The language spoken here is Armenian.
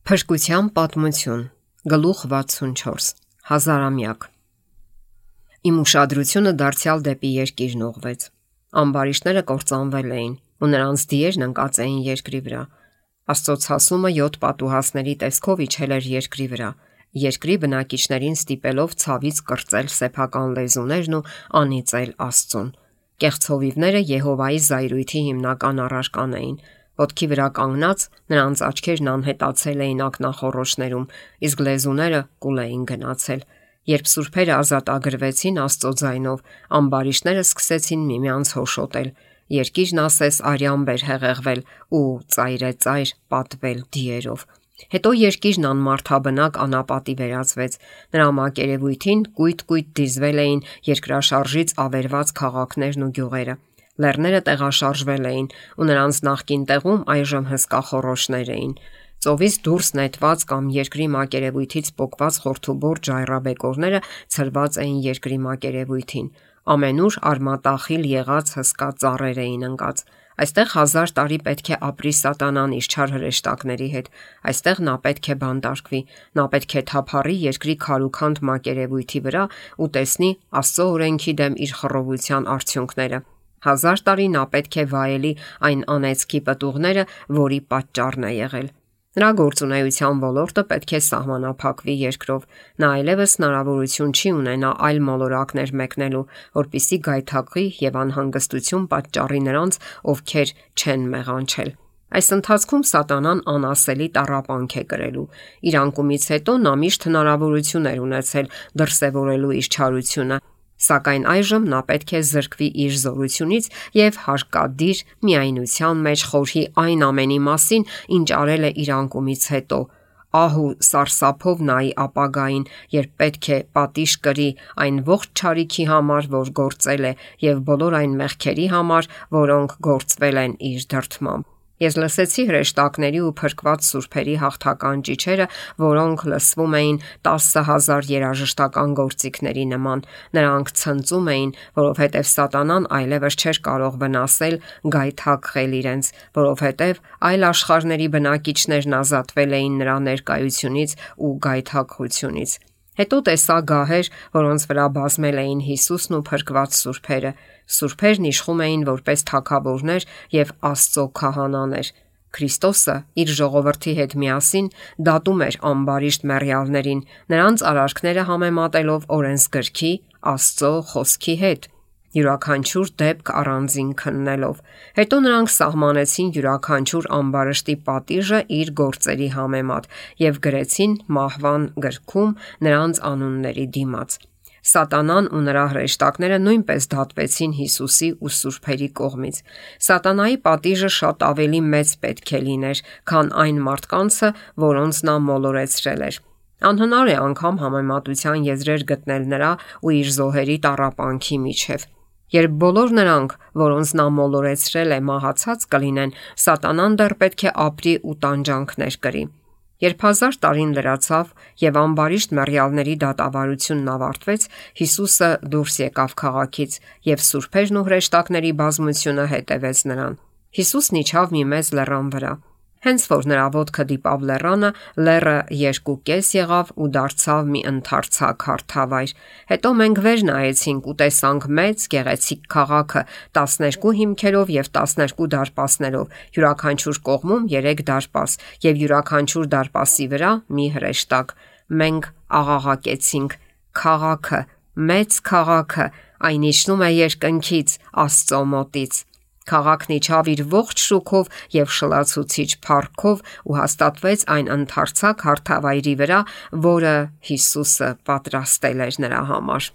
Փրկության պատմություն, գլուխ 64, հազարամյակ։ Իմ ուշադրությունը դարձյալ դեպի երկիրն ուղղվեց։ Ամբարիշտները կործանվել էին, ու նրանց դիերն ընկած էին երկրի վրա։ Աստծո ցասումը 7 պատուհասների տեսքով իջել էր երկրի վրա, երկրի բնակիչներին ստիպելով ցավից կրծել սեփական լեզուներն ու անիծել Աստծուն։ Կեղծ հովիվները Եհովայի զայրույթի հիմնական առարական էին։ Ոտքի վրա կանգնած նրանց աչքերն անհետացել էին ակնախոռոչներում, իսկ լեզուները կուլ էին գնացել։ Երբ սուրբերը ազատագրվեցին Աստծո ձայնով, ամբարիշտները սկսեցին միմյանց հոշոտել։ Երկիրն ասես արյամբ էր հեղեղվել ու ծայրեծայր պատվել դիերով։ Հետո երկիրն անմարդաբնակ անապատի վերածվեց։ Նրա մակերևույթին կույտ-կույտ դիզվել էին երկրաշարժից ավերված քաղաքներն ու գյուղերը։ Լեռները տեղաշարժվել էին, ու նրանց նախկին տեղում այժմ հսկա խոռոչներ էին։ Ծովից դուրս նետված կամ երկրի մակերևույթից պոկված խորթուբոր ժայռաբեկորները ցրված էին երկրի մակերևույթին։ Ամենուր արմատախիլ եղած հսկա ծառեր էին ընկած։ Այստեղ 1000 տարի պետք է ապրի սատանան իր չար հրեշտակների հետ։ Այստեղ նա պետք է բանտարկվի։ Նա պետք է թափառի երկրի քարուքանդ մակերևույթի վրա ու տեսնի Աստծո օրենքի դեմ իր խռովության արդյունքները։ 1000 տարի նա պետք է վայելի այն անեծքի պտուղները, որի պատճառն է եղել։ Նրա գործունեության ոլորտը պետք է սահմանափակվի երկրով։ Նա այլևս հնարավորություն չի ունենա այլ մոլորակներ մեկնելու, որպիսի գայթակղի եւ անհանգստություն պատճառի նրանց, ովքեր չեն մեղանչել։ Այս ընթացքում սատանան անասելի տառապանք է կրելու։ Իր անկումից հետո նա միշտ հնարավորություն էր ունեցել դրսևորելու իր չարությունը, սակայն այժմ նա պետք է զրկվի իր զորությունից եւ հարկադիր միայնության մեջ խորհի այն ամենի մասին, ինչ արել է իր անկումից հետո։ Ահու սարսափով նայի ապագային, երբ պետք է պատիժ կրի այն ողջ չարիքի համար, որ գործել է, եւ բոլոր այն մեղքերի համար, որոնք գործվել են իր դրդմամբ։ Ես լսեցի հրեշտակների ու փրկված սուրբերի հաղթական ճիչերը, որոնք լսվում էին 10,000 երաժշտական գործիքների նման։ Նրանք ցնծում էին, որովհետև սատանան այլևս չէր կարող վնասել, գայթակղել իրենց, որովհետև այլ աշխարհների բնակիչներն ազատվել էին նրա ներկայությունից ու գայթակղությունից։ Հետո տեսա գահեր, որոնց վրա բազմել էին Հիսուսն ու փրկված սուրբերը։ Սուրբերն իշխում էին որպես թագավորներ եւ Աստծո քահանաներ։ Քրիստոսը իր ժողովրդի հետ միասին դատում էր ամբարիշտ մեռյալներին, նրանց արարքները համեմատելով օրենսգրքի, Աստծո խոսքի հետ, յուրաքանչյուր դեպք առանձին քննելով։ Հետո նրանք սահմանեցին յուրաքանչյուր ամբարշտի պատիժը իր գործերի համեմատ եւ գրեցին մահվան գրքում նրանց անունների դիմաց։ Սատանան ու նրա հրեշտակները նույնպես դատվեցին Հիսուսի ու սուրբերի կողմից։ Սատանայի պատիժը շատ ավելի մեծ պետք է լիներ, քան այն մարդկանցը, որոնց նա մոլորեցրել էր։ Անհնար է անգամ համեմատության եզրեր գտնել նրա ու իր զոհերի տառապանքի միջև։ Երբ բոլոր նրանք, որոնց նա մոլորեցրել է, մահացած կլինեն, սատանան դեռ պետք է ապրի ու տանջանքներ կրի։ Երբ 1000 տարին լրացավ եւ ամբարիշտ մեռյալների դատավարությունն ավարտվեց, Հիսուսը դուրս եկավ քաղաքից եւ սուրբերն ու հրեշտակների բազմությունը հետևեց նրան։ Հիսուսն իջավ մի մեծ լեռան վրա։ Հենց որ նրա ոտքը դիպավ լեռանը, լեռը 2 կես եղավ ու դարձավ մի ընդարձակ հարթավայր։ Հետո մենք վեր նայեցինք ու տեսանք մեծ գեղեցիկ քաղաքը 12 հիմքերով եւ 12 դարպասներով, յուրաքանչյուր կողմում 3 դարպաս եւ յուրաքանչյուր դարպասի վրա մի հրեշտակ։ Մենք աղաղակեցինք. «Քաղաքը, մեծ քաղաքը, այն իջնում է երկնքից, Աստծո մոտից»։ Քաղաքն իջավ իր ողջ շուքով եւ շլացուցիչ փառքով ու հաստատվեց այն ընդարձակ հարթավայրի վրա, որը Հիսուսը պատրաստել էր նրա համար։